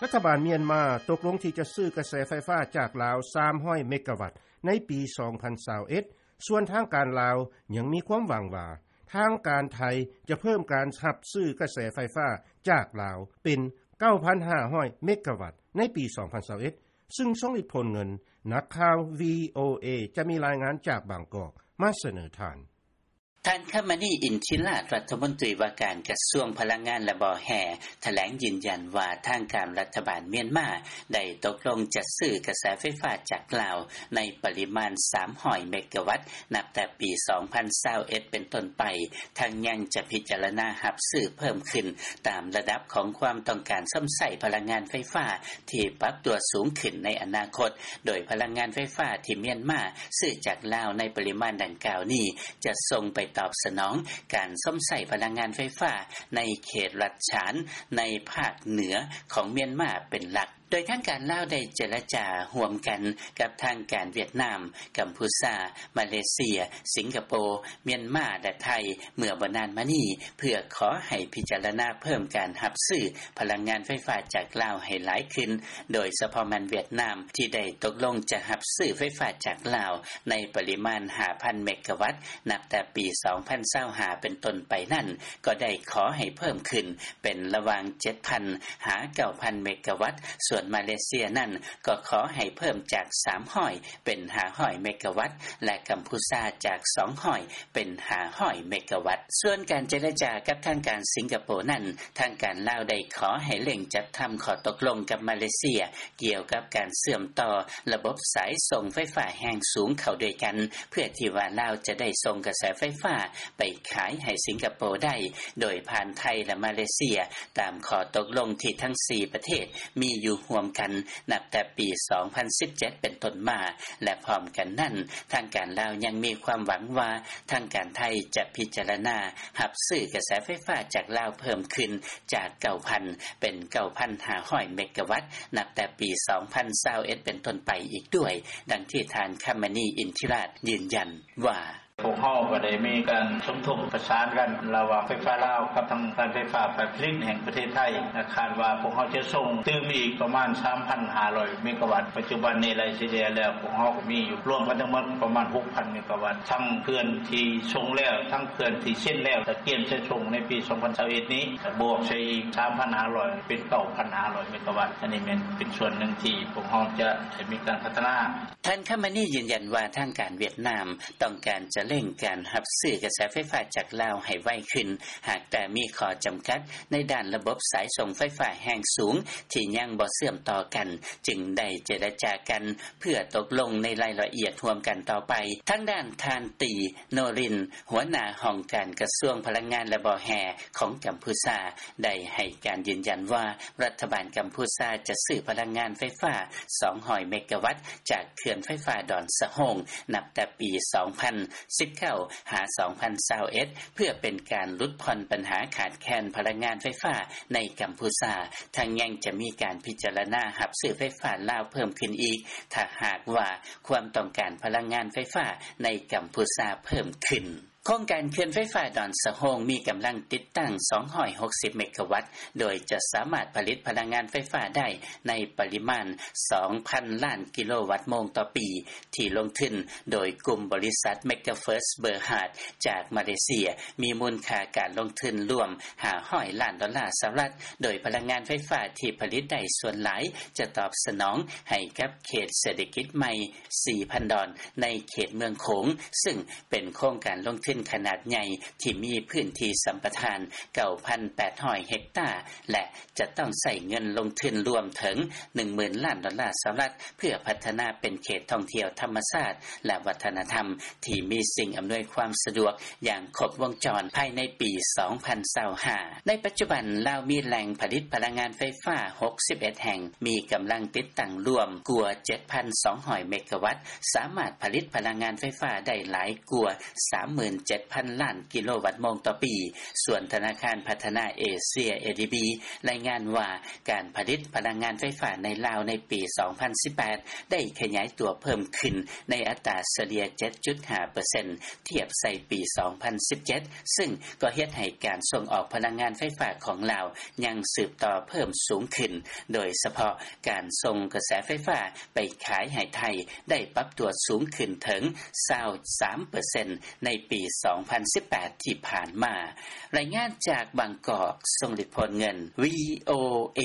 ລັດຖະບານມຽນມາ ຕົກລົງທີ່ຈະຊື້ກະແສໄຟຟ້າຈາກລາວ ສາມຮ້ອຍເມກະວັດ ໃນປີ ສອງພັນຊາວເອັດ ສ່ວນທາງການລາວ ຍັງມີຄວາມຫວັງວ່າ ທາງການໄທຈະເພີ່ມການຮັບຊື້ກະແສໄຟຟ້າຈາກລາວ ເປັນ ເກົ້າພັນຫ້າຮ້ອຍເມກະວັດ ໃນປີ ສອງພັນຊາວເອັດ ຊຶ່ງຊົງອິດ ໂພນເງິນ. ນັກຂ່າວ VOA ຈະມີລາຍງານຈາກບາງກອກ ມາສະເໜີທ່ານ. ທ່ານ ຄຳມະນີ ອິນທິລາດ ລັດຖະມົນຕີວ່າການກະຊວງພະລັງງານ ແລະ ບໍ່ແຮ່ ຖະແຫຼງຢືນຢັນວ່າ ທາງການລັດຖະບານມຽນມາ ໄດ້ຕົກລົງຈະຊື້ກະແສໄຟຟ້າຈາກລາວ ໃນປະລິມານ ສາມຮ້ອຍເມກະວັດ ນັບແຕ່ປີ ສອງພັນຊາວເອັດ ເປັນຕົ້ນໄປ, ທັງຍັງຈະພິຈາລະນາຮັບຊື້ເພີ່ມຂຶ້ນ ຕາມລະດັບຂອງຄວາມຕ້ອງການຊົມໃຊ້ພະລັງງານໄຟຟ້າ ທີ່ປັບຕົວສູງຂຶ້ນໃນອະນາຄົດ, ໂດຍພະລັງງານໄຟຟ້າທີ່ມຽນມາຊື້ຈາກລາວໃນປະລິມານດັ່ງກ່າວນີ້ ຈະສົ່ງໄປຕອບສະໜອງການຊົມໃຊ້ພະລັງງານໄຟຟ້າໃນເຂດລັດສະຫານ ໃນພາກເໜືອຂອງມຽນມາເປັນຫຼັກ. ໂດຍທາງການລາວໄດ້ເຈລະຈາຮ່ວມກັນກັບທາງການຫວຽດນາມ, ກຳພູຊາ, ມາເລເຊຍ, ສິງກະໂປ, ມຽນມາ ແລະ ໄທ ເມື່ອບໍ່ນານມານີ້ ເພື່ອຂໍໃຫ້ພິຈາລະນາເພີ່ມການຮັບຊື້ພະລັງງານໄຟຟ້າຈາກລາວໃຫ້ຫຼາຍຂຶ້ນ, ໂດຍສະເພາະແມ່ນຫວຽດນາມ ທີ່ໄດ້ຕົກລົງຈະຮັບຊື້ໄຟຟ້າຈາກລາວໃນປະລິມານ ຫ້າພັນເມກະວັດ ນັບແຕ່ປີ ສອງພັນຊາວຫ້າ ເປັນຕົ້ນໄປນັ້ນ ກໍໄດ້ຂໍໃຫ້ເພີ່ມຂຶ້ນເປັນລະຫວ່າງ ເຈັດພັນ ຫາ ເກົ້າພັນເມກະວັດ, ສ່ວນມາເລເຊຍນັ້ນກໍຂໍໃຫ້ເພີ່ມຈາກ ສາມຮ້ອຍ ເປັນ ຫ້າຮ້ອຍເມກະວັດ ແລະ ກຳພູຊາຈາກ ສອງຮ້ອຍ ເປັນ ຫ້າຮ້ອຍເມກະວັດ. ສ່ວນການເຈລະຈາກັບທາງການສິງກະໂປນັ້ນ, ທາງການລາວໄດ້ຂໍໃຫ້ເລັ່ງຈັດທຳຂໍ້ຕົກລົງກັບມາເລເຊຍ ກ່ຽວກັບການເຊື່ອມຕໍ່ລະບົບສາຍສົ່ງໄຟຟ້າແຮງສູງເຂົ້າດ້ວຍກັນ ເພື່ອທີ່ວ່າລາວຈະໄດ້ສົ່ງກະແສໄຟຟ້າໄປຂາຍໃຫ້ສິງກະໂປໄດ້ ໂດຍຜ່ານໄທ ແລະ ມາເລເຊຍ ຕາມຂໍ້ຕົກລົງທີ່ທັງສີ່ປະເທດມີຢູ່ຮ່ວມກັນ ນັບແຕ່ປີ ສອງພັນສິບເຈັດ ເປັນຕົ້ນມາ ແລະ ພ້ອມກັນນັ້ນ ທາງການລາວຍັງມີຄວາມຫວັງວ່າ ທາງການໄທຈະພິຈາລະນາຮັບຊື້ກະແສໄຟຟ້າຈາກລາວເພີ່ມຂຶ້ນຈາກ ເກົ້າພັນ ເປັນ ເກົ້າພັນຫ້າຮ້ອຍເມກະວັດ ນັບແຕ່ປີ ສອງພັນຊາວເອັດ ເປັນຕົ້ນໄປອີກດ້ວຍ, ດັ່ງທີ່ທ່ານ ຄຳມະນີ ອິນທິລາດ ຢືນຢັນວ່າ: ພວກເຮົາກໍໄດ້ມີການສົມທົບປະສານກັນລະຫວ່າງໄຟຟ້າລາວກັບທາງການໄຟຟ້າຝ່າຍຜະລິດແຫ່ງປະເທດໄທ ແລະ ຄາດວ່າພວກເຮົາຈະສົ່ງຕື່ມອີກປະມານ ສາມພັນຫ້າຮ້ອຍເມກະວັດ. ປັດຈຸບັນນີ້ໄລ່ສະເລ່ຍແລ້ວ ພວກເຮົາກໍມີຢູ່ລວມກັນທັງໝົດປະມານ ຫົກພັນເມກະວັດ ທັງເຂື່ອນທີ່ສົ່ງແລ້ວ ທັງເຂື່ອນທີ່ເຊັນແລ້ວ ຕະກຽມຈະສົ່ງໃນປີ ສອງພັນຊາວເອັດນີ້ ກະບວກໃສ່ອີກ ສາມພັນຫ້າຮ້ອຍ ເປັນ ເກົ້າພັນຫ້າຮ້ອຍເມກະວັດ. ອັນນີ້ແມ່ນເປັນສ່ວນໜຶ່ງທີ່ພວກເຮົາຈະໄດ້ມີການພັດທະນາ. ທ່ານ ຄຳມະນີ ຢືນຢັນວ່າ ທາງການຫວຽດນາມຕ້ອງການຈະເລັ່ງການຮັບຊື້ກະແສໄຟຟ້າຈາກລາວໃຫ້ໄວຂຶ້ນ, ຫາກແຕ່ມີຂໍ້ຈຳກັດໃນດ້ານລະບົບສາຍສົ່ງໄຟຟ້າແຮງສູງທີ່ຍັງບໍ່ເຊື່ອມຕໍ່ກັນ, ຈຶ່ງໄດ້ເຈລະຈາກັນເພື່ອຕົກລົງໃນລາຍລະອຽດຮ່ວມກັນຕໍ່ໄປ. ທາງດ້ານທ່ານ ຕີ ໂນລິນ ຫົວໜ້າຫ້ອງການກະຊວງພະລັງງານ ແລະ ບໍ່ແຮ່ຂອງກຳພູຊາ ໄດ້ໃຫ້ການຢືນຢັນວ່າ ລັດຖະບານກຳພູຊາຈະຊື້ພະລັງງານໄຟຟ້າ ສອງຮ້ອຍເມກະວັດ ຈາກເຂື່ອນໄຟຟ້າດອນສະໂຮງ ນັບແຕ່ປີ ສອງພັນສິບເກົ້າ ຫາ ສອງພັນຊາວເອັດ ເພື່ອເປັນການຫຼຸດຜ່ອນບັນຫາຂາດແຄນພະລັງງານໄຟຟ້າໃນກຳພູຊາ, ທັງຍັງຈະມີການພິຈາລະນາຮັບຊື້ໄຟຟ້າລາວເພີ່ມຂຶ້ນອີກ ຖ້າຫາກວ່າຄວາມຕ້ອງການພະລັງງານໄຟຟ້າໃນກຳພູຊາເພີ່ມຂຶ້ນ. ໂຄງການເຂື່ອນໄຟຟ້າດອນສະໂຮງ ມີກຳລັງຕິດຕັ້ງ ສອງຮ້ອຍຫົກສິບເມກະວັດ ໂດຍຈະສາມາດຜະລິດພະລັງງານໄຟຟ້າໄດ້ໃນປະລິມານ ສອງພັນລ້ານກິໂລວັດໂມງຕໍ່ປີ ທີ່ລົງທຶນໂດຍກຸ່ມບໍລິສັດ Megaverse Berhad ຈາກມາເລເຊຍ ມີມູນຄ່າການລົງທຶນລວມ ຫ້າຮ້ອຍລ້ານດອນລາສະຫະລັດ, ໂດຍພະລັງງານໄຟຟ້າທີ່ຜະລິດໄດ້ສ່ວນຫຼາຍຈະຕອບສະໜອງໃຫ້ກັບເຂດເສດຖະກິດໃໝ່ ສີ່ພັນດອນ ໃນເຂດເມືອງໂຂງ, ຊຶ່ງເປັນໂຄງການລົງທຶນຂະໜາດໃຫຍ່ທີ່ມີພື້ນທີ່ສຳປະທານ ເກົ້າພັນແປດຮ້ອຍເຮັກຕາ ແລະ ຈະຕ້ອງໃຊ້ເງິນລົງທຶນລວມເຖິງ ໜຶ່ງໝື່ນລ້ານດອນລາສະຫະລັດ ເພື່ອພັດທະນາເປັນເຂດທ່ອງທ່ຽວທຳມະຊາດ ແລະ ວັດທະນະທຳ ທີ່ມີສິ່ງອຳນວຍຄວາມສະດວກຢ່າງຄົບວົງຈອນພາຍໃນປີ ສອງພັນຊາວຫ້າ. ໃນປັດຈຸບັນ ລາວມີແຫຼ່ງຜະລິດພະລັງງານໄຟຟ້າ ຫົກສິບເອັດແຫ່ງ, ມີກຳລັງຕິດຕັ້ງລວມກວ່າ ເຈັດພັນສອງຮ້ອຍເມກະວັດ, ສາມາດຜະລິດພະລັງງານໄຟຟ້າໄດ້ຫຼາຍກວ່າ ສາມໝື່ນ ເຈັດພັນລ້ານກິໂລວັດໂມງຕໍ່ປີ. ສ່ວນທະນາຄານພັດທະນາເອເຊຍ ເອດີບີ ລາຍງານວ່າ ການຜະລິດພະລັງງານໄຟຟ້າໃນລາວໃນປີສອງພັນສິບແປດ ໄດ້ຂະຫຍາຍຕົວເພີ່ມຂຶ້ນໃນອັດຕາສະເລ່ຍເຈັດຈຸດຫ້າເປີເຊັນ ທຽບໃສ່ປີສອງພັນສິບເຈັດ ຊຶ່ງກໍເຮັດໃຫ້ການສົ່ງອອກພະລັງງານໄຟຟ້າຂອງລາວຍັງສືບຕໍ່ເພີ່ມສູງຂຶ້ນ, ໂດຍສະເພາະການສົ່ງກະແສໄຟຟ້າໄປຂາຍໃຫ້ໄທໄດ້ປັບຕົວສູງຂຶ້ນເຖິງຊາວສາມເປີເຊັນ ໃນປີສອງພັນສິບແປດທີ່ຜ່ານມາ. ລາຍງານຈາກບາງກອກ, ຊົງລິດ ໂພນເງິນ ວີໂອເອ.